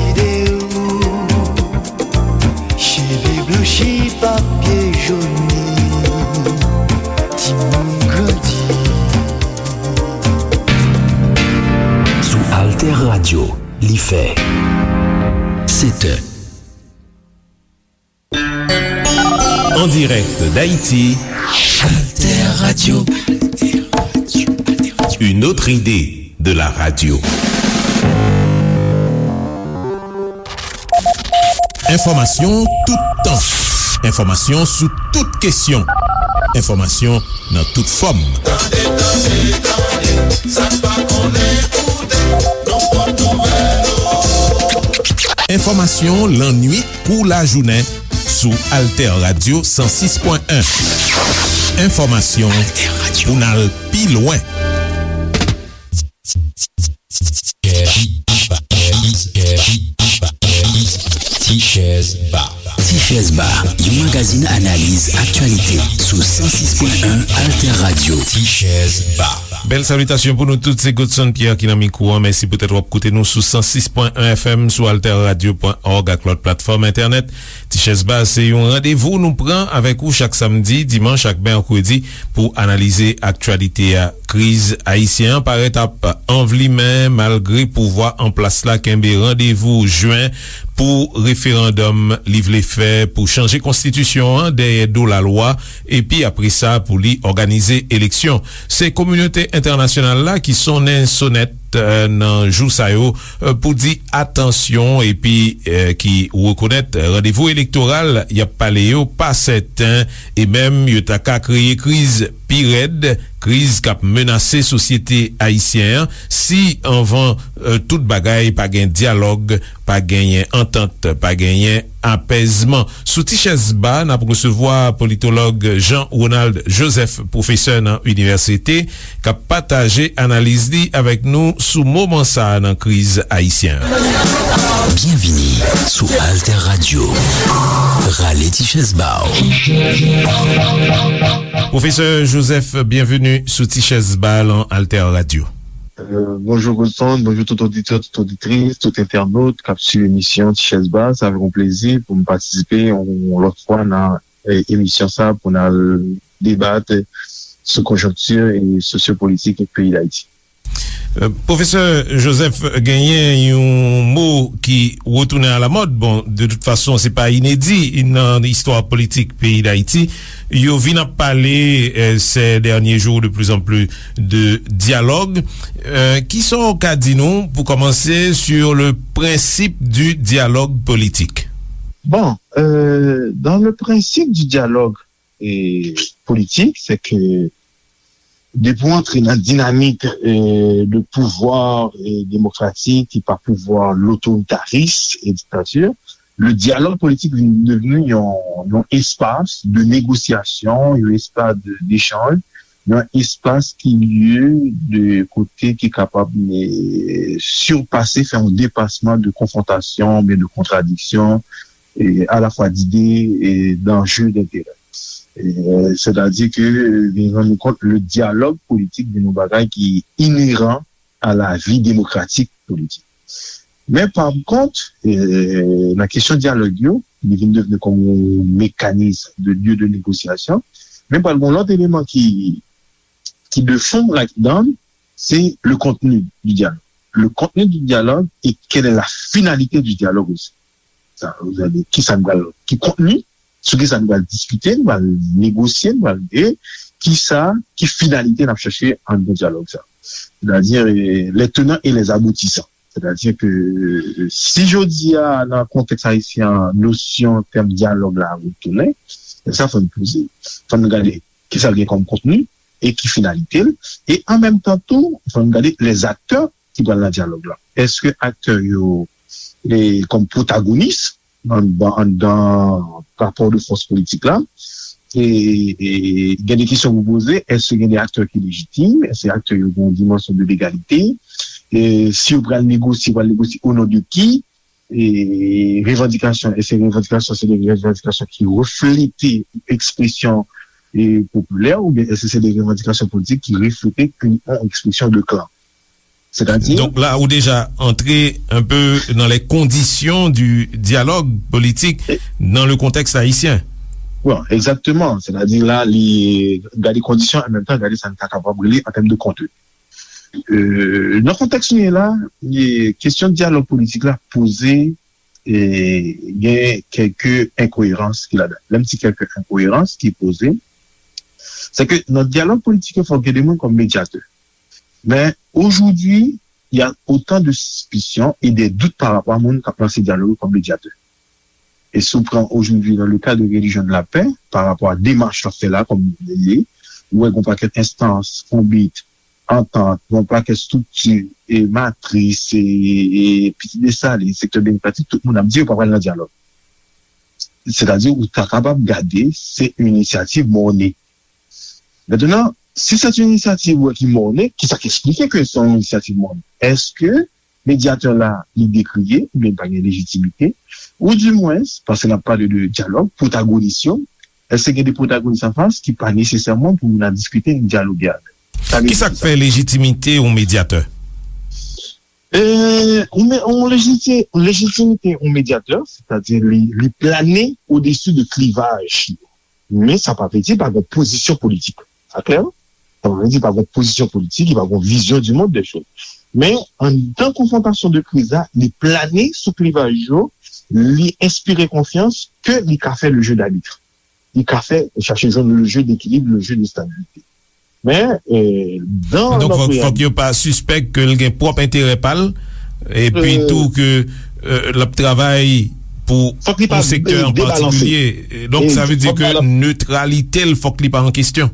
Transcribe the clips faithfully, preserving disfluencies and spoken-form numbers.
Ide ou, cheve blanchi, papye joni, timoun grandi. Sou Alter Radio, li fè sèt è. En direct d'Haïti, Alter Radio. Une autre idée de la radio. Enfòmasyon toutan. Enfòmasyon sou tout kesyon. Enfòmasyon nan tout fòm. Tande, tande, tande, sa n pa konnen koute, nan pòt nouvèl ou. Enfòmasyon lannwit kou lajounen sou Alter Radio san sis pwen en. Enfòmasyon pou n al pi lwen. Tichèz Ba. Tichèz Ba, yon magazin analiz aktyalite sou san sis pwen en Alter Radio. Tichèz Ba. Bèl salitasyon pou nou tout, se Godson Pierre ki nan mikwo an. Mèsi poutèt w ap koute nou sou san sis pwen en F M, sou alter radio pwen org ak lòt platfòm entènèt. Tichèz Ba se yon randevou nou pran avèk ou chak samdi, dimanch ak mèkredi pou analize aktyalite a. Kriz ayisyen an parèt ap anvlimen malgre pouvwa an plas la kenbe randevou jen pou referandòm li vle fè pou chanje konstitisyon an dèyè do lalwa, epi apre sa pou li òganize eleksyon. Se kominote entènasyonal la ki sonnen sonèt, eh, nan jou sa yo, eh, pou di atansyon epi, eh, ki rekonèt randevou elektoral y ap pale yo pa sèten e menm yo ta ka kreye kriz pi rèd, kriz k ap menase sosyete ayisyen an si anvan, eh, tout bagay pa gen dyalòg, pa genyen antant, pa genyen apèzman. Sou Tichèz Ba, n ap resevwa politològ Jean Ronald Joseph, pwofesè nan inivèsite, k ap pataje analiz li avèk nou sou moman sa a nan kriz ayisyen an. Byenvini sou Alter Radio. Rale Tichèz Ba w. Pwofesè Joseph, byenveni sou Tichèz Ba lan Alter Radio. Euh, bonjou Godson, bonjou tout oditè, tout oditris, tout entènot k ap swiv emisyon Tichèz Ba. Sa fè yon plezi pou m patisipe yon lòt fwa nan, eh, emisyon sa pou n al debat sou konjonkti e sosyopolitik peyi Dayiti. Euh, Pwofesè Joseph, genyen yon mo ki retounen alamòd. Bon, de tout fason, se pa inedi nan istwa politik peyi Dayiti. Yo vin ap pale, euh, ces derniers jours de plus en plus de dialogue. Euh, kisa w ka di nou, pou kòmanse, sur le principe du dialogue politique? Bon, euh, dans le principe du dialogue, eh, politique, c'est que depi w antre nan dinamik, eh, de pouvwa, eh, demokratik ki pa pouvwa lotoritaris e diktati, le dialogue politique vin devni yon, yon espas de negosyasyon, yon espas de, d'echanj, yon espas ki lye de kote ki kapab, eh, sipase, fè yon depasman de konfwontasyon, oubyen de kontradiksyon, eh, alafwa d'ide, eh, d'anje, d'interè. Eh, sètadi ke, eh, vin rann nou kont, le dialogue politique vin yon bagay ki ineran a la vie démocratique politique. Men pa kont, eh, nan kesyon dyalòg yo, li vin devni kòm yon mekanis de lye de negosyasyon. Men pral gen yon lòt eleman ki, ki de fon ladan, c'est le contenu du dialogue. Le contenu du dialogue et quelle est la finalité du dialogue aussi. Sa, kisa nou pral, ki kontni, sou kisa nou pral diskite, nou pral negosye, nou pral, e kisa, ki finalite n ap chache anndan dyalòg sa. Sètadi, eh, les tenants et les aboutissants. Sètadi ke, eh, si jodi a, nan kontèks ayisyen an, nosyon, tèm dyalòg la retounen, sa fò n poze. Fò n gade kisa l gen kòm kontni e ki finalite l. E an menm tan tou, fò n gade les acteurs ki pral nan dyalòg la. Èske aktè yo, e, kòm pwotagonis anndan, anndan rapò de fòs politik la? E, e gen de kesyon pou poze, èske gen de aktè ki lejitim? Èske aktè yo gen yon dimansyon de legalite? E si yo pral negosye, yo pral negosye o non de ki? E revandikasyon, èske revandikasyon se de revandikasyon ki reflete ekspresyon, e, popilè, oubyen èske se de revandikasyon politik ki reflete yon ekspresyon de klan? Sètadi, donk la, ou deja antre un peu dans les conditions du dialogue politique dans le contexte haïtien. Bon, exactement. Sètadi la, li gade kondisyon, an menm tan, gade sa n ta kapab rele an tèm de kontni. Euh, nan kontèks nou ye la, kesyon dyalòg politik la poze, e, gen kèlke enkoyerans ki ladan. Lè m di kèlke enkoyerans ki poze, se ke nan dyalòg politik yo, fòk gen de moun kòm medyatè. Men, aujourd'hui, il y a autant de suspicion et des doutes par rapport à moun k ap lanse dyalòg yo kòm medyatè. E si w pran aujourd'hui dans le cas de Religion de la Paix, par rapport à démarche l ap fè la, kòm li ye, ou wè gon pakèt enstans, konbit, antant, gon pakèt estrikti, e matris, e, e Pitit Desalin, sektè demokratik, tout moun ap di yo pa pral nan dyalòg. Sètadi, ou ta kapab gade, se yon inisyativ mòne. Mentnan, si se yon inisyativ ou wè ki mòne, ki sa k eksplike ke se yon inisyativ mòne? Èske medyatè la, li dekriye, oubyen li pa gen lejitimite, ou dimwens, paske n ap pale de dyalòg, pwotagonis yo, èske gen de pwotagonis anfas ki pa nesesèman pou moun ap diskite, nou dyaloge avè l? Sa vle Ki sa k fè lejitimite yon medyatè? E, yon me- yon lejiti- lejitimite yon medyatè, sètadi li, li plane odesi de klivaj yo. Men sa pa vle di pa gen pozisyon politik. Sa klè, non? Sa pa vle di pa gen pozisyon politik, li pa gen vizyon du monde des choses. Men, anndan konfwontasyon de kriz la, li plane sou klivaj yo, li enspire konfyans ke li ka fè le jeu d'arbitre. Li ka fè, chache jwenn le jeu d'équilibre, le jeu de stabilité. Men, e, dan Donk, fòk, fòk yo pa sispèk ke l gen pwòp enterè pa l, epi tou ke, e, l ap travay pou yon sektè an patikilye. Donk, sa vle di ke netralite l, fòk li pa an kesyon.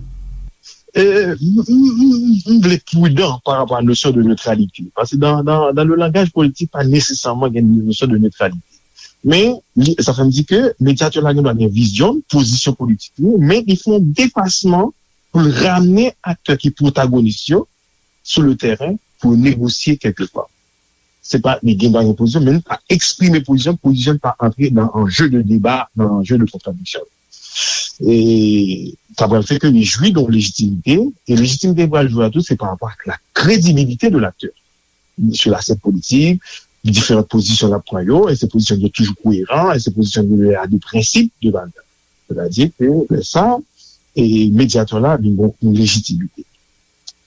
E, m, m, m, m vle pridan pa rapò a nosyon de netralite. Paske dan, dan, dan le langaj politik, pa nesesèman gen nosyon de netralite. Men, li, sa fè m di ke medyatè la gen dwa gen vizyon, pozisyon politik li, men li fè yon depasman pou l ramne aktè ki pwotagonis yo sou le tèren pou yo negosye kèlkeswa. Se pa li gen dwa gen pozisyon, men li pa eksprime pozisyon, pozisyon li pa antre nan anje de deba, nan anje de kontradiksyon. E sa pral fè ke li jwi de yon lejitimite, e lejitimite li pral jwi a tou, se pa rapò ak la kredibilite de laktè sou lasèn politik, diferan pozisyon l ap pran yo, èske pozisyon yo toujou koyeran, èske pozisyon yo a de prensip de baz. Sètadi ke lè sa, e medyatè la vin gen yon lejitimite.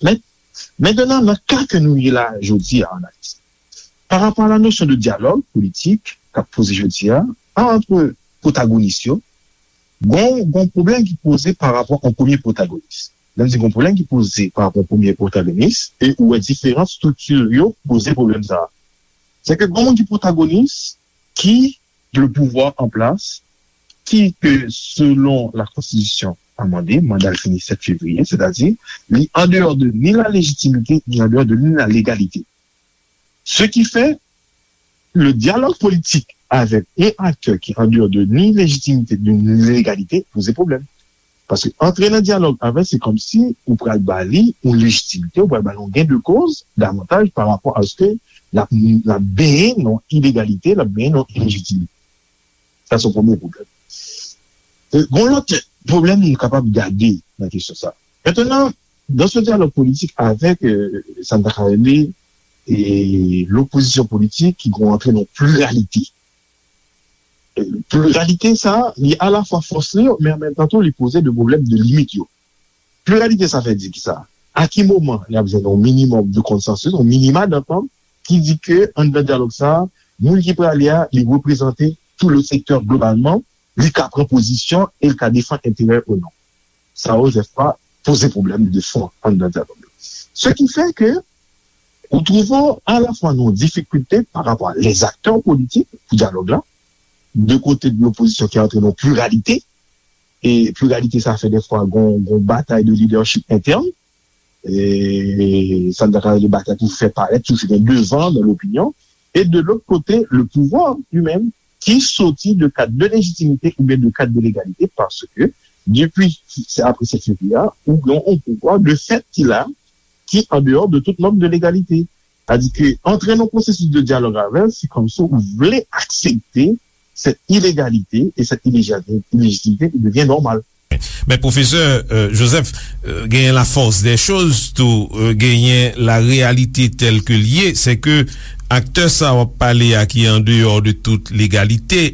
Men, mentnan, nan ka ke nou ye la jodi a an Ayiti, pa rapò a la nosyon de dyalòg politik k ap poze jodi a, ant pwotagonis yo, gon, gon pwoblèm ki poze pa rapò a yon premye pwotagonis. Lè m di gon pwoblèm ki poze pa rapò a yon premye pwotagonis, e ou wè diferan estrikti yo poze pwoblèm sa a. Se ke gon moun ki pwotagonis, ki le pouvwa an plas, ki ke selon la konstitisyon amande, manda l fini sèt fevriye, sètadi, li an deyò de ni la lejitimite, ni an deyò de ni la legalite. Ce qui fait, le dialogue politique avec un acteur qui en dehors de ni légitimité, de ni légalité, poze pwoblèm. Paske antre nan dyalòg avè l, se kòmsi ou pral ba li yon lejitimite, ou pral ba li yon gain de cause davantaj pa rapò a se l ap, l ap benyen nan ilegalite, l ap benyen nan ilejitimite. Sa se yon premye pwoblèm. E, gon lòt pwoblèm nou kapab gade nan kesyon sa. Mentnan, dans ce dialogue politique avec, euh, sa n ta ka rele, e, lopozisyon politik ki gon antre nan pliralite. E, pliralite sa, li alafwa fòs li, men an menm tan tou, li poze de pwoblèm de limit yo. Pliralite sa fè di ki sa? A ki moman y ap jwenn yon minimòm de konsansis, yon minima dantant, ki di ke anndan dyalòg sa, moun ki prale a, li reprezante tout le sektè globalman, li ka pran pozisyon e li ka defann enterè ou non. Sa, Joseph, pa poze pwoblèm de fon anndan dyalòg la. Ce qui fait que ou twouve w alafwa nan yon difikilte pa rapò a les acteurs politiques pou dyalòg la, de kote de lopozisyon ki antre nan pliralite, e pliralite sa fè dèfwa gon, gon batay de lidèchip entèn, e sa n ta ka rele batay pou fè parèt, toujou gen devan nan lopinyon, e de lòt kote, le pouvwa li menm, ki soti de kad de lejitimite oubyen de kad de legalite, paske depi se apre sèt fevriye a, ou gen yon pouvwa de fèt ki la, ki an deyò de tout nòm de legalite. Sètadi ke antre nan pwosesis de dyalòg avè l, se kòmsi ou vle aksepte sèt ilegalite e sèt ilejitimite ki devyen nòmal. Men pwofesè, euh, Joseph, euh, genyen la force des choses tou, euh, genyen la réalité telle que l ye, se ke aktè sa w ap pale a ki an deyò de tout legalite,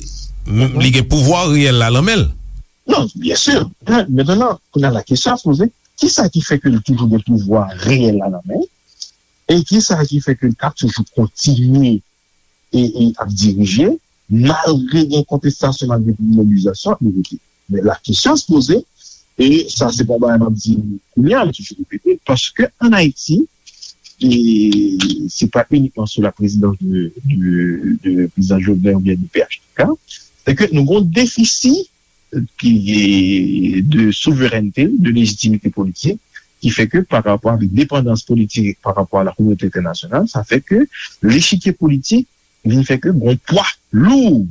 m- li gen pouvwa reyèl la nan men l. Non, byen si. Mentnan, kounye a la kesyon a poze, kisa ki fè ke l toujou gen pouvwa reyèl la nan men l? E kisa ki fè ke l ka toujou kontinye e, e ap dirije, malgre gen kontestasyon, malgre gen mobilizasyon, li rete. Men la kesyon se poze, e sa se pa yon bagay m ap di kounye a, m toujou repete, paske ann Ayiti, e se pa inikman sou la présidence de, de, de président Jovenel oubyen de P H T K, se ke nou gen yon defisi ki de souverènte, de lejitimite politik, ki fè ke pa rapò avèk depandans politik pa rapò a la kominote entènasyonal, sa fè ke lechikye politik vin fè ke gon pwa lou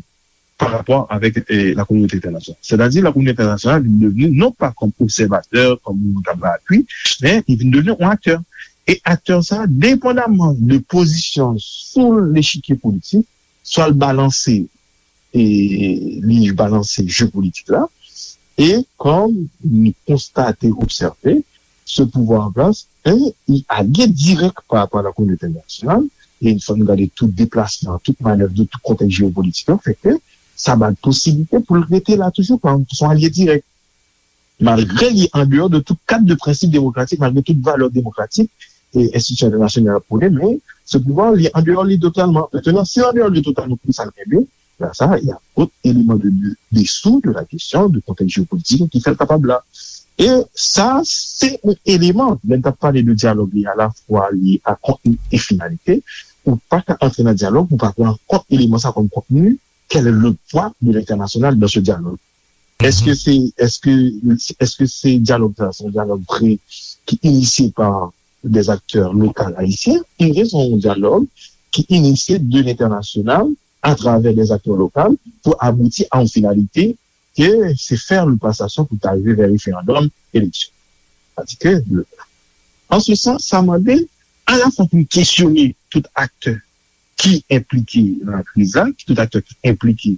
pa rapò avèk eh, la kominote entènasyonal. Sètadi, la kominote entènasyonal vin devni non pa kòm obsèvatè, kòm moun k ap bay apui, men li vin devni yon aktè. E aktè sa, depandamman de pozisyon sou lechikye politik, swa l balanse e li balanse je politik la. E kòm nou konstate, obsève, ce pouvoir en place, e, li alye dirèk pa rapò a la kominote entènasyonal, e fò nou gade tout deplasman, tout manèv de tout kontèks jewopolitik yo, fè ke sa ba l posiblite pou l rete la toujou, kòm son alye dirèk. Malgre li andeyò de tout kad de prensip demokratik, malgre tout valè demokratik e enstitisyon entènasyonal ap pwone, men ce pouvoir li andeyò li totalman. Mentnan, si l andeyò li totalman, pou sa l kenbe, la sa, y a dòt eleman de, de, dessous de la kesyon de kontèks jewopolitik ki fè l kapab la. E sa, se yon eleman, lè n t ap pale de dyalòg, li alafwa li a kontni e finalite, ou pa ka antre nan dyalòg, ou pa pran kont eleman sa kòm kontni, quel est le poids de l'international dans ce dialogue? Èske se, èske, èske se dyalòg sa, se yon dyalòg vre ki inisye pa des acteurs locaux haïtiens, oubyen se yon dyalòg ki inisye de l'international à travers des acteurs locaux pour aboutir à une finalité que c'est faire le passation pour arriver vers référendum, élection. Sètadi ke, an se sans, sa mande alafwa pou n kesyone tout aktè ki enplike nan kriz la, ki tout aktè ki enplike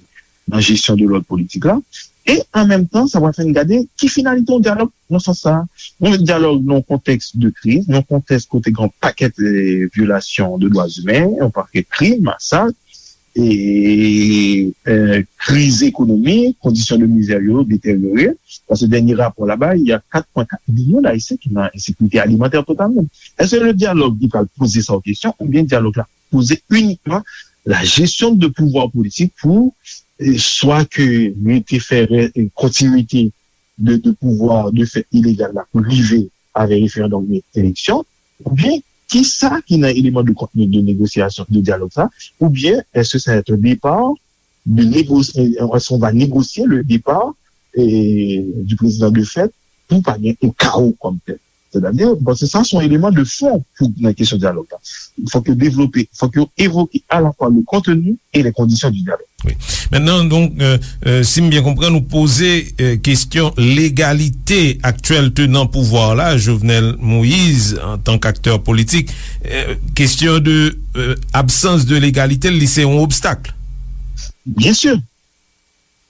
nan jesyon de lòd politik la, e an menm tan, sa va fè n gade ki finalite yon dyalòg nan sans sa. Yon dyalòg nan yon kontèks de kriz, nan yon kontèks kote gen yon pakèt eh, vyolasyon de dwa imen, yon pakèt krim, masak, e, eh, kriz ekonomik, kondisyon de mizè yo deteryore. Paske dènye rapò la bay, y a kat pwen kat milyon d'Ayisyen ki nan ensekirite alimantè totalman. Èske le dyalòg li pral poze sa w kesyon oubyen dyalòg la poze inikman la gestion de pouvoir politik pou eh, swa ke rete fè eh, kontinite de, de pouvwa de fèt ilegal la pou rive avè referandòm oubyen eleksyon, oubyen kisa ki nan eleman de kontni de negosyasyon, de dyalòg sa, oubyen èske sa va être un départ de négocier, est-ce qu'on va négocier le départ eh, du président de fèt pou pa gen yon kawo kòm tèl. Sètadi, bon, se sa se yon eleman de fon pou nan kesyon dyalòg la. Fòk yo devlope, fòk yo evoke alafwa le contenu et les conditions du dialogue. Wi. Mentnan, donk, euh, euh, si m byen konprann, ou poze euh, kesyon legalite aktyèl tenan pouvwa la, Jovenel Moïse, antank aktè politik. Euh, kesyon de euh, absans de legalite, li se yon obstak. Byen si.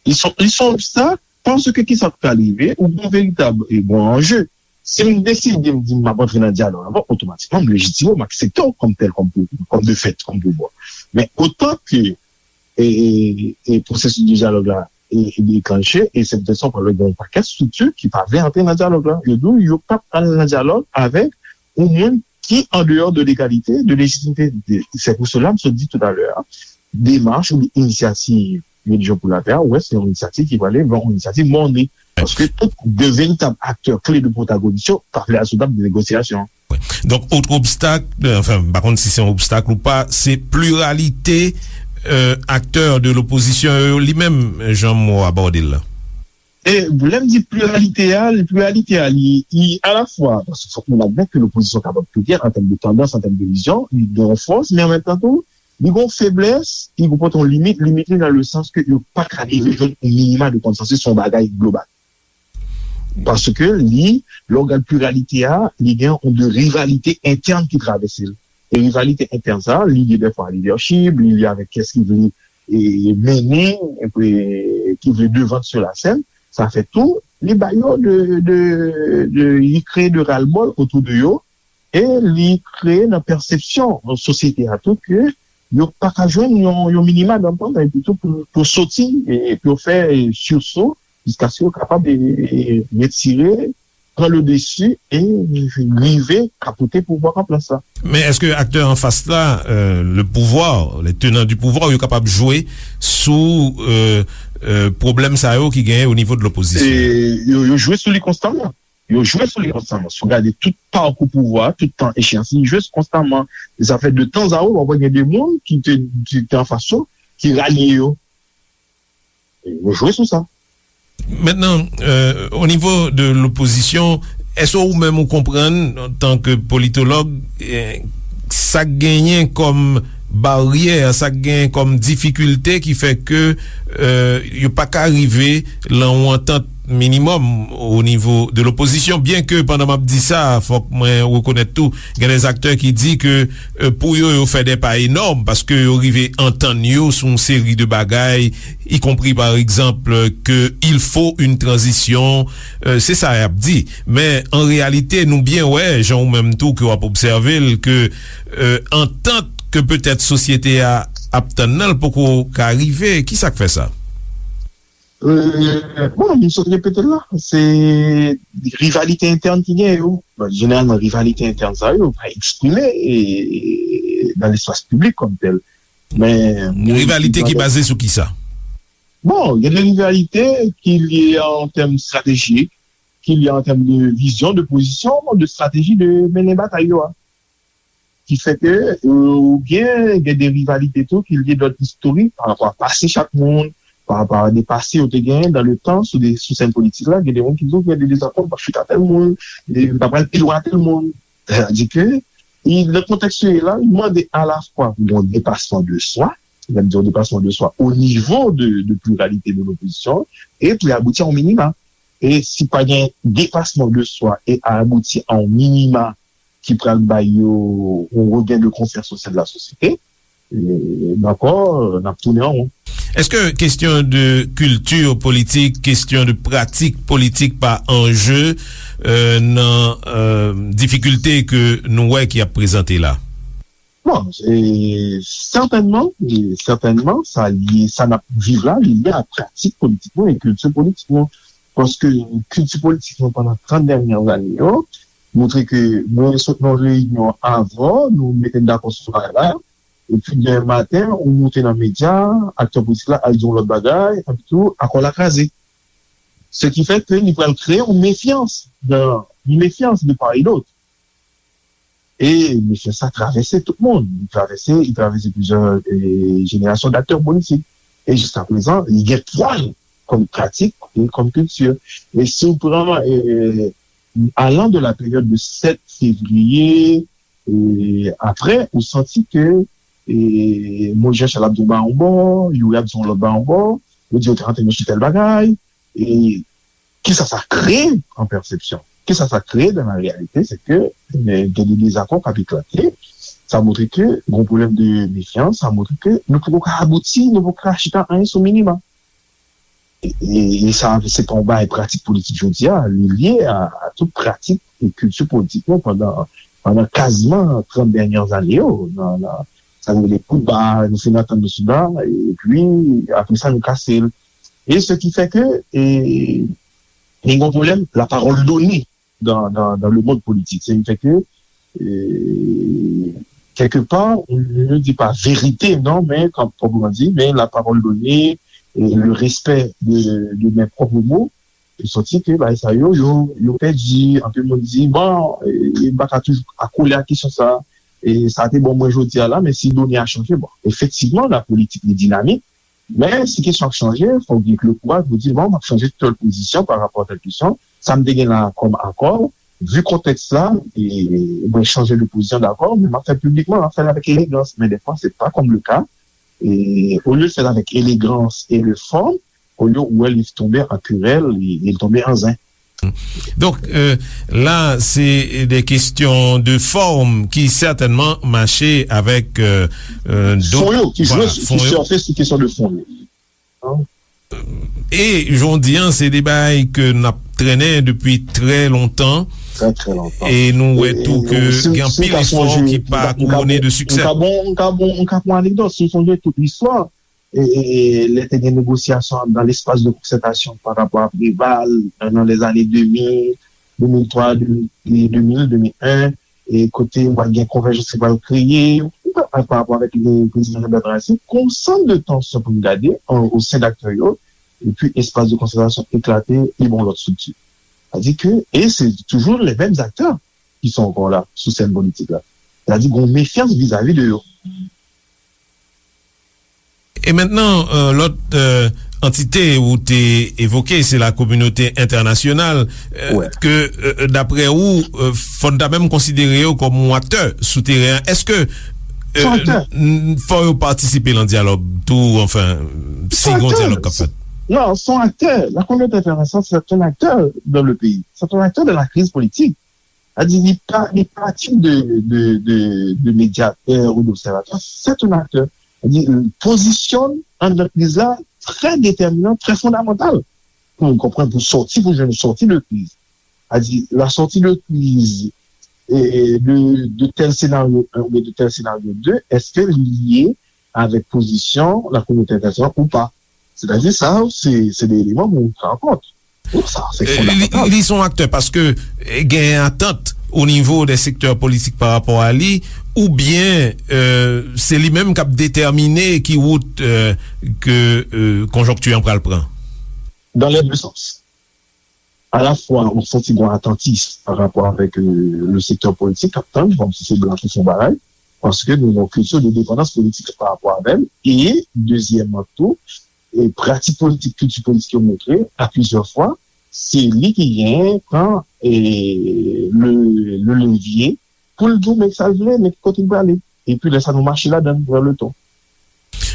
Li se yon obstak, paske kisa k pral rive, ou gen veritab e bon anje. Si m deside m di m ap antre nan dyalòg la, bon, otomatikman, m lejitime w, m aksepte w kòm tèl, kòm, kòm de fèt, kòm pouvwa. Men otan ke e, e, e pwosesis de dyalòg la e, e deklanche, e se poutèt sa w pral wè gen yon pakèt estrikti ki pa vle antre nan dyalòg la. Yo di w yo p ap al nan dyalòg avèk yon moun ki andeyò de legalite, de lejitimite. Se pou sela m sot di toutalè a, demach oubyen inisyativ Religion pour la Paix a, ou wè, se yon inisyativ ki prale vè yon inisyativ mòne. Paske tout de veritab aktè kle de pwotagonis yo pa vle al sou tab de negosyasyon. Donk, otre obstak, euh, anfen, m pa konn si se yon obstak ou pa, se pliralite euh, aktè de lopozisyon yo li menm, jan m abòde l la. E lè m di pliralite a, pliralite a, li, li alafwa, paske fòk nou admèt ke lopozisyon kapab pliryèl an tèm de tandans, an tèm de vizyon, li gen yon fòs, men an menm tan tou, li gen yon feblès, li konpòte yon limit, limit li nan le sans ke yo pa ka rive jwenn yon minima de konsansis, se yon bagay global. Paske li, lè w gad pliralite a, li gen yon de rivalite entèn ki travèse l. E rivalite entèn sa, li lye dèfwa a lidèchip, li lye avèk kiyès ki vle e, mennen, e, ki vle devan sou lasèn. Sa fè tou, li ba yo de, de, de, li kreye de ras-le-bol otou de yo, e li kreye nan pèsepsyon sosyete a tou ke yo pa ka jwenn yon, yon minima dantann, epi tou pou, pou soti, e pou yo fè siso, jiskaske yo kapab, e, e, retire, pran le dessus e rive kapote pouvwa an plas la. Men èske aktè anfas la, euh, le pouvoir, les tenants du pouvoir, yo kapab jwe sou, euh, euh, pwoblèm sa yo ki genyen o nivo de lopozisyon? E yo, yo jwe sou li konstaman. Yo jwe sou li konstaman. Si w gade tout pakou pouvwa, tout tan echeyans, li jwe konstaman. E sa fè de tan a ot, w ap wè gen de moun ki te, ki te anfas yo, ki ralye yo. Yo jwe sou sa. Mentnan, euh, o nivo de lopozisyon, èske ou menm ou konprann, antanke politològ, eh, sa k genyen kòm baryè, sa k genyen kòm difikilte ki fè ke, euh, yo pa ka rive lan yon antant minimòm o nivo de lopozisyon? Byenke pandan m ap di sa, fòk mwen rekonèt tou, gen de aktè ki di ke, euh, pou yo, yo fè de pa enòm, paske yo rive antann yo sou yon seri de bagay, y compris, par exemple, que il faut une transition, euh, se sa y ap di. Men, an reyalite, nou byen wè, jan ou menm tou ke w ap obsève l, ke, euh, antant ke petèt sosyete a ap tann nan, l poko ka rive. Ki sa k fè sa? Euh, bon, m sot repete l la. Se rivalite entèn ki gen yo. Bon, jeneralman, rivalite entèn sa yo pa eksprime, e, nan lespas piblik kòm tèl. Men, mwen, rivalite ki baze sou ki sa? Bon, gen de rivalite ki lye an tèm estratejik, ki lye an tèm de vizyon, de pozisyon, de estrateji de mennen batay yo a. Ki fè ke, euh, ou gen, gen de rivalite tou ki lye dòt istorik pa rapò a pase chak moun, pa rapò a de pase yo te genyen dan le tan sou de, sou sèn politik la, gen de moun ki di w gen de dezakò, m p ap chita tèl moun, e m pa pral pi lwen a tèl moun. Sètadi ke, i, nan kontèks yo ye la, li mande alafwa pou yon depasman de swa, lè m di yon depasman de swa o nivo de, de pliralite de lopozisyon, e pou y abouti a yon minima. E si pa gen depasman de swa e abouti a yon minima ki pral bay yo yon regen de konfyans o sen de la sosyete, e, dakò, n ap tounen an won. Èske kesyon de kilti politik, kesyon de pratik politik pa anje, euh, nan, euh, difikilte ke nou wè ki ap prezante la? Bon, e, sètènman, e, sètènman, sa lye, sa n ap viv la, li lye a pratik politik nou e kilti politik nou. Paske kilti politik nou pandan trant dènye ane yo, montre ke mwen sot nan reyinyon avè w, nou mete n dakò sou bagay la, epi demen maten, ou moute nan medya, aktè politik la al di yon lòt bagay, epi tou, akò la kraze. Se ki fè ke li pral kreye yon mefyans, de, yon mefyans de part et d'autre. E mefyans sa travèse tout moun. Li travèse, li travèse plizyè, e, jenerasyon daktè politik. E jiska prezan, li gen pwa l kòm pratik e kòm kilti. E si w pran, e, alan de la peryòd de sèt fevriye, e, apre, ou santi ke, e, Moyiz Jan Chal ap di yon bagay yon bò, Youri ap di yon lòt bagay yon bò, yo di yo te antre nan sou tèl bagay, e kisa sa kreye an pèsepsyon? Kisa sa kreye dan la reyalite? Se ke, e, gen de dezakò k ap eklate. Sa montre ke gen yon pwoblèm de mefyans, sa montre ke nou poko ka abouti, nou poko ka chita anyen sou minima. E, e, e sa, se pa yon bagay pratik politik jodi a, li lye a, a tout pratik e kilti politik nou pandan, pandan kaziman trant dènye ane yo, nan, nan, sa nou rele koudba, nou fin antann nou sou la, epi apre sa nou kase l. E se ki fè ke, e, gen yon pwoblèm, la parole donnée dans, dans, dans le monde politique. Sa ki fè ke, e, kèlkepa, nou di pa verite, non, men, kan, kòman di, men la parole donnée, e, le respect de, de mes propres mots, e santi ke bagay sa yo, yo, yo pèdi. Anpil moun di, bon, e, m pa ka toujou akole ak kesyon sa, e sa te bon mwen jodi a la, men si done a chanje, bon, efektivman, la politik li dinamik, men si kesyon ap chanje, fòk gen le kouraj pou di, bon, m ap chanje tèl pozisyon pa rapò a tèl kesyon. Sa m te gen la kòm akò, vi kontèks la, e, mwen chanje de pozisyon, dakò, men m ap fè l piblikman, m ap fè l avèk elegans. Men dèfwa, se pa kòm le ka. E olye l fè l avèk elegans e le fòm, olye ou wè li tonbe an kerèl, li, li tonbe an zen. Donk, euh, la, se de kesyon de fòm ki sètènman mache avèk, euh, euh, dòt, fon yo, ki jwe, vwala, ki fon yo, sèfe sou kesyon de fon yo. Hein? Euh, E jan w di an, se de bagay ke n ap trennen depi trè lontan. Trè, trè lontan. E nou wè tou ke gen anpil efò ki pa kouwone de siksè. M ka bon, m ka bon, m ka pran anekdòt. Si w sonje tout listwa, e, e, e, lè te gen negosyasyon dans l'espace de concertation par rapport à Préval, euh, dans les années deux mille, deux mille trois, deux mille, deux mille, deux mille un, e kote w pral gen konvèjans ki pral kreye, pa, pa rapò avèk li, prezidan Jean Bertrand Aristide, gon sant de tansyon pou n gade an, o sen d aktè yo, epi espas de konsantrasyon eklate, li ba yon lòt estrikti. Sa di ke, e se toujou les mêmes acteurs qui sont encore là, sou sèn politik la. Sa di gon mefyans vizavi de yo. E mentnan, euh, lòt, euh, antite ou te evoke, se la kominote entènasyonal, euh, ke, euh, daprè ou, euh, fò n ta menm konsidere yo kòm yon aktè sou teren an. Èske, euh, n- fò yo patisipe nan dyalòg tou, anfen, si gon dyalòg k ap fèt? Non, c'est un acteur. La communauté internationale, c'est un acteur dans le pays. C'est un acteur de la crise politique. Sa di, li pa, li pa tit de, de, de, de médiateur ou d'observateur, c'est un acteur. Sa di, pozisyon anndan kriz la trè detèminan, trè fondamantal pou nou konprann, pou sòti, pou jwenn sòti de kriz. Sa di, la sortie de crise, e, de, de tel scénario un oubyen de tel scénario deux, èske li lye avèk pozisyon la kominote entènasyonal ou pa? Sètadi sa, se, se de eleman pou nou pran an kont. Wi, sa, se fondamental. Li, li se yon aktè paske, eh, gen atant o nivo de sektè politik pa rapò a li, oubyen, euh, se li menm k ap detèmine ki wout, euh, ke, euh, konjonkti an pral pran? Dans les deux sens. Alafwa, ou santi gon atantis pa rapò avèk, euh, le sektè politik k ap tann, kòmsi se blan ki fè yon bagay, paske nou gen yon kilti de depandans politik pa rapò avè l, e, dezyèmman tou, e pratik politik, kilti politik yo montre, a plizyè fwa, se li ki genyen pran, e, le, le levye pou l di w men sa l vle, men ki kote l prale. Epi lè sa nou mache ladan l, vè le ton.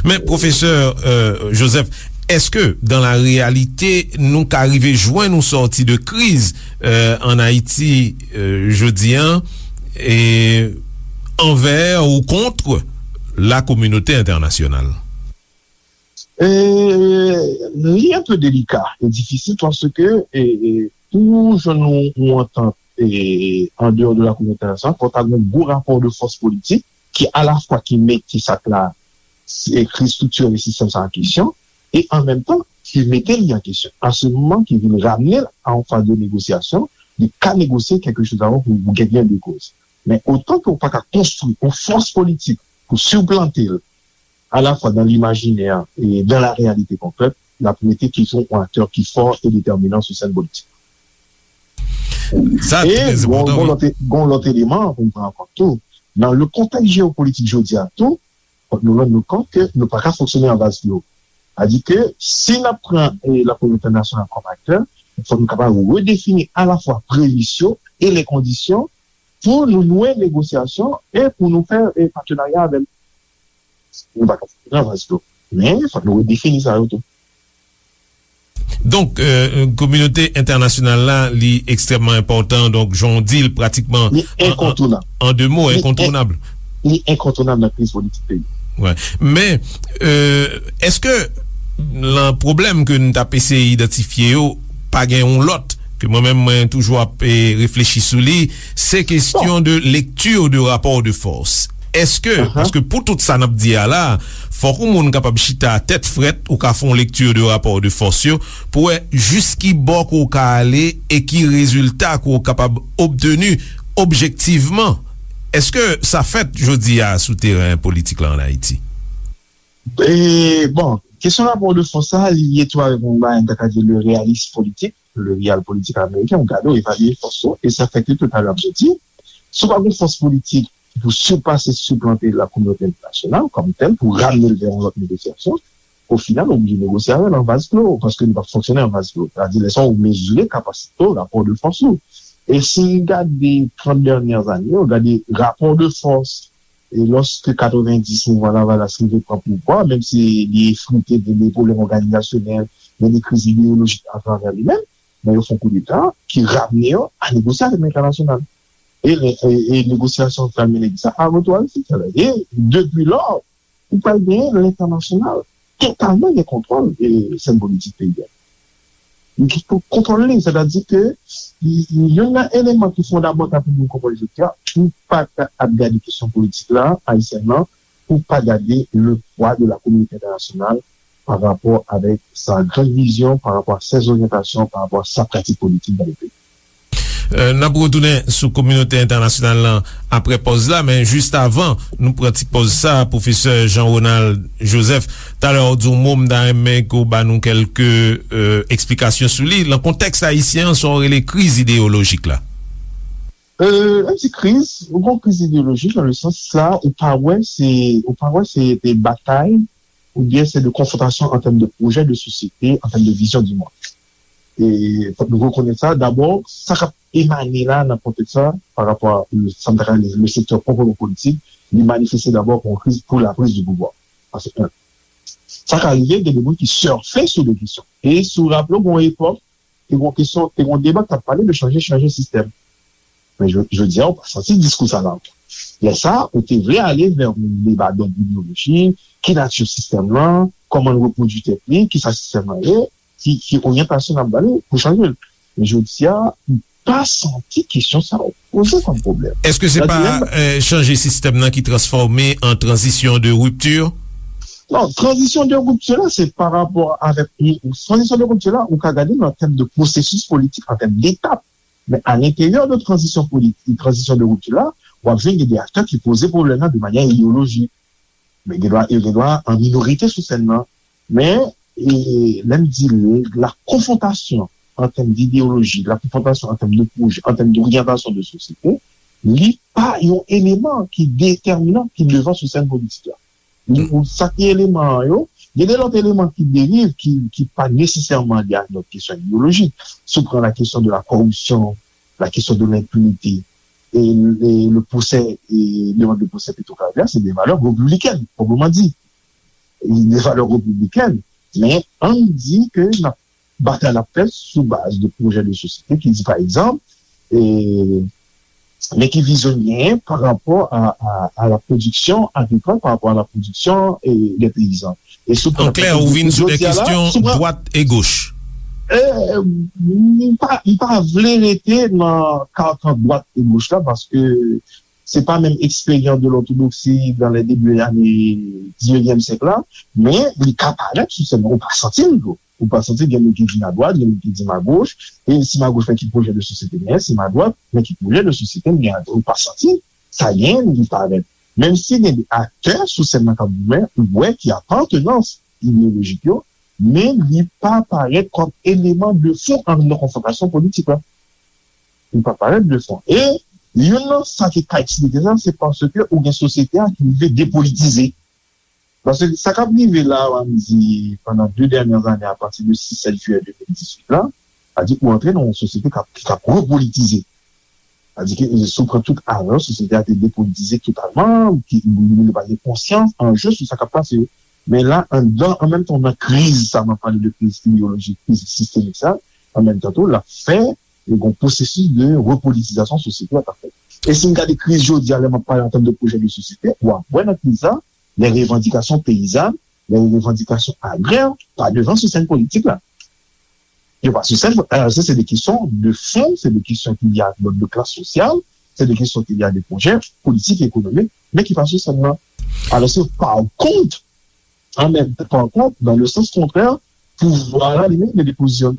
Men, pwofesè, euh, Joseph, èske, dans la réalité, nou ka rive jwenn yon sòti de kriz, euh, an Ayiti, euh, jodi an, e anvè ou kont la kominote entènasyonal? Euh, li un peu délicat et difficile parce que, e, e, pou jwenn yon, yon antant, e, en dehors de la communauté internationale, fò ta gen yon gwo rapò de fòs politik ki alafwa ki mete sa k la, se, kriz striktirèl e sistèm sa an kesyon, e an menm tan ki mete li an kesyon. A se moman ki vin ramne l a yon faz de negosyasyon, li ka negosye kèlke choz avan pou, pou gen gen de koz. Men otan ke w pa ka konstwi yon fòs politik pou siplante l, alafwa dans l'imaginaire et dans la réalité concrète, l ap rete toujou yon aktè ki fò e detèminan sou sèn politik. Sa trè enpòtan, wi. E gon, gon lòt, gon lòt eleman pou n pran an kont tou. Nan le kontèks jewopolitik jodi a tou, fòk nou rann nou kont ke nou pa ka fonksyone an vaz klo. Sa di ke si n ap pran, e, la kominote entènasyonal kòm aktè, fòk nou kapab redefini alafwa premis yo e lè kondisyon pou nou nouwe negosyasyon e pou nou fè, e, patenarya avè l. Nou pa ka fonksyone an vaz klo. Men, fòk nou redefini sa yo tou. Donk, euh, kominote entènasyonal la, li ekstrèmman enpòtan. Donk, jan w di l, pratikman, li an, an, enkontounab. An de mo, li en-, enkontounab. Li enkontounab nan kriz politik peyi. Wè. Men, euh, èske nan pwoblèm ke n t ap eseye idantifye yo, pa gen yon lòt ke mwen menm, mwen toujou ap, eh, reflechi sou li, se kesyon de lecture de rapport de force. Èske, paske pou tout sa n ap di a la, fòk yon moun kapab chita tèt frèt, ou ka fè yon lecture de rapport de force yo, pou wè jis ki bò ke w ka ale e ki rezilta ke w kapab obteni objektivman. Èske sa fèt jodi a sou teren politik la an Ayiti? E, bon, kesyon rapò de fòs sa, li lye tou avèk yon bagay, m ta ka di le réalisme politique, le réel politique américain, ou gade, ou evalye fòs ou, e sa fè ke totalman, ap di, si w pa gen fòs politik pou sipase, siplante la kominote entènasyonal kòm tèl, pou ramne l vè yon lòt negosyasyon, o final, ou oblije negosye avè l an vaz klo, paske nou p ap fonksyone an vaz klo. Sa di, lè sa, ou mezire kapasite w, rapò de fòs ou. E si n gade trant dènyè ane yo, gade rapò de fòs, e lòske katrevenndis mouvman Lavalas rive pran pouvwa, menm si li efrite de, de pwoblèm òganizasyonèl, de, de kriz ideyolojik atravè li menm, men yo fè yon koudeta ki ramne yo a negosye avèk lentènasyonal. E, e, e negosyasyon k pral mennen ki sa a retou Ayiti. E depi lò, ou pral genyen lentènasyonal totalman gen kontwòl, e, sèn politik peyi a. Li gen pou kontwòl li, sètadi ke youn nan eleman ki fondamantal pou moun konprann jodi a, ou pa ka ap gade kesyon politik la, ayisyèn nan, ou pa gade le poids de la communauté internationale par rapport avec sa grande vision, par rapport à ses orientations, par rapport à sa pratique politique dans le pays. N ap retounen sou kominote entènasyonal lan apre pòz la, men jis avan nou pran ti pòz sa, pwofesè Jean Ronald Joseph, talè w di yon mo, m ta renmen ke w ba nou kèlke eksplikasyon sou li. Nan kontèks ayisyen an, sa w rele kriz ideyolojik la? Lè m di kriz, ou gen yon kriz ideyolojik nan le sans la, ou pa wè se, ou pa wè se de batay oubyen se de konfwontasyon an tèm de pwojè de sosyete, an tèm de vizyon di mond. E fòk nou rekonèt sa. Dabò, sa k ap emane la nan kontèks sa, pa rapò a sa m ta ka rele le sektè pwòpman politik, li manifeste dabò kon kriz pou la prise de pouvoir. Sa se en. Sa ka rive gen de moun ki sèfe sou de kesyon. E si w raple w, gen yon epòk, te gen kesyon, te gen deba k t ap pale de chanje, chanje sistèm. Men jodi a, ou pa santi diskou sa la ankò. Lè sa, ou te vle ale vè yon deba dòd ideyolojik, ki nati sistèm lan, kòman l repwodui tèt li, kisa sistèm lan ye, ki, ki oryantasyon n ap ba li pou chanje l. Men jodi a, ou pa santi kesyon sa yo poze kòm pwoblèm. Èske se pa chanje sistèm nan ki transfòme an tranzisyon de ripti? Non, tranzisyon de ripti la, se pa rapò avèk, tranzisyon de ripti la, ou ka gade nan tèm de pwosesis politik, an tèm detap. Men a lenteryè de tranzisyon politik, tranzisyon de ripti la, w ap jwenn gen de aktè ki poze pwoblèm nan de manyè ideyolojik. Men gen dwa, yo gen dwa an minorite sou sèn nan. Men, e, lè m di la konfwontasyon an tèm dideyoloji, la konfwontasyon an tèm de pwojè, an tèm doryantasyon de sosyete, li pa yon eleman ki detèminan, ki devan sou sèn politik la. Ou, sa ki eleman an yo, gen de lòt eleman ki derive, ki, ki pa nesesèman lye ak lòt kesyon ideyolojik. Si w pran la kesyon de la kòripsyon, la kesyon de lenpinite, e, e le pwosè, e demande de pwosè Petro-Caribe, se de valè repibliken, pwoprman di. E de valè repibliken, men ann di ke n ap batay l ap fèt sou baz de pwojè de sosyete ki di, pa egzanp, e, men ki vizyon l genyen pa rapò a, a, a la pwodiksyon agrikòl, pa rapò a la pwodiksyon, e, dè peyizan. E si w pran... An klè, ou vin sou de kesyon dwat e goch. E, m pa, m pa vle rete nan karkan dwat e goch la, paske se pa menm eksperyans de lòtodoksi dans les débuts des années dix-neuvième siècle la, men li ka parèt sou sèn nan, ou pa santi l tou. Ou pa santi gen moun ki di m adwat, gen moun ki di m agoch, e si m agoch, men ki pwojè de sosyete m genyen, si m adwat, men ki pwojè de sosyete m genyen, ou pa santi sa genyen, li parèt. Menm si gen de aktè sou sèn nan k ap goumen, ou wè ki apartenans ideyolojik yo, men li pa parèt kòm eleman de fon an nan konfwontasyon politik la. Li pa parèt de fon. E youn nan sa ki ka eksplike sa, se paske ou gen sosyete a ki rive depolitize. Paske sa k ap rive la, w a di, pandan de dènyè ane, apati de sis, sèt jiyè de mil dizuit la, sa di ou antre nan yon sosyete k ap, ki, k ap repolitize. Sa di ke, si w pran tout avan, sosyete a te depolitize totalman, ki, li pa gen konsyans, anje sou sa k ap pase yo. Men la, anndan, an menm tan, nan kriz sa, m ap pale de kriz ideyolojik, kriz sistemik sa, an menm tan tou, l ap fè, e gen yon pwosesis de repolitizasyon sosyete a k ap fèt. E si n gade kriz jodi a, lè m ap pale an tèm de pwojè de sosyete, w ap wè nan kriz sa, les revendications paysannes, les revendications agraires pa devan sou sèn politik la. Yo pa sou sèn, alò se, se de kesyon de fon, se de kesyon ki lye ak lòt de klas sosyal, se de kesyon ki lye ak de pwojè politik, ekonomik, men ki pa sou sèn nan. Alò se, pa kont, an menm tan, pa kont, dans le sens contraire, pouvwa la li menm gen de pozisyon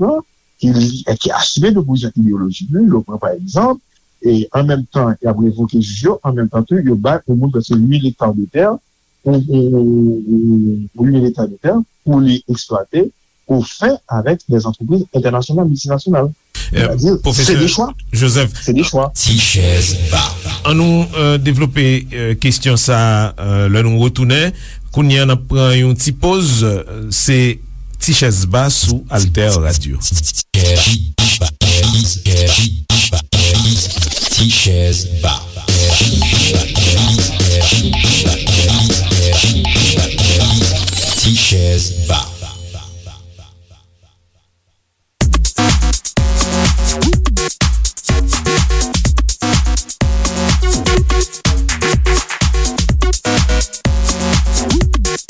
ki, ki asime de pozisyon ideyolojik li. Yo pran pa egzanp, e an menm tan y ap revoke jij yo, an menm tan tou yo bay yon moun prèske uit mil ekta de tè, ou, ou, ou, ou uit mil ekta de tè pou li eksplwate au fin avec des entreprises internationales, multinationales. Pwofesè Joseph, se de chwa. Ti chèz ba. Annou devlope kesyon sa a lè nou retounen. Kounye a n ap pran yon ti poz. Se Ti chèz ba sou Alter Radio. Ti chèz ba. Ti chèz ba.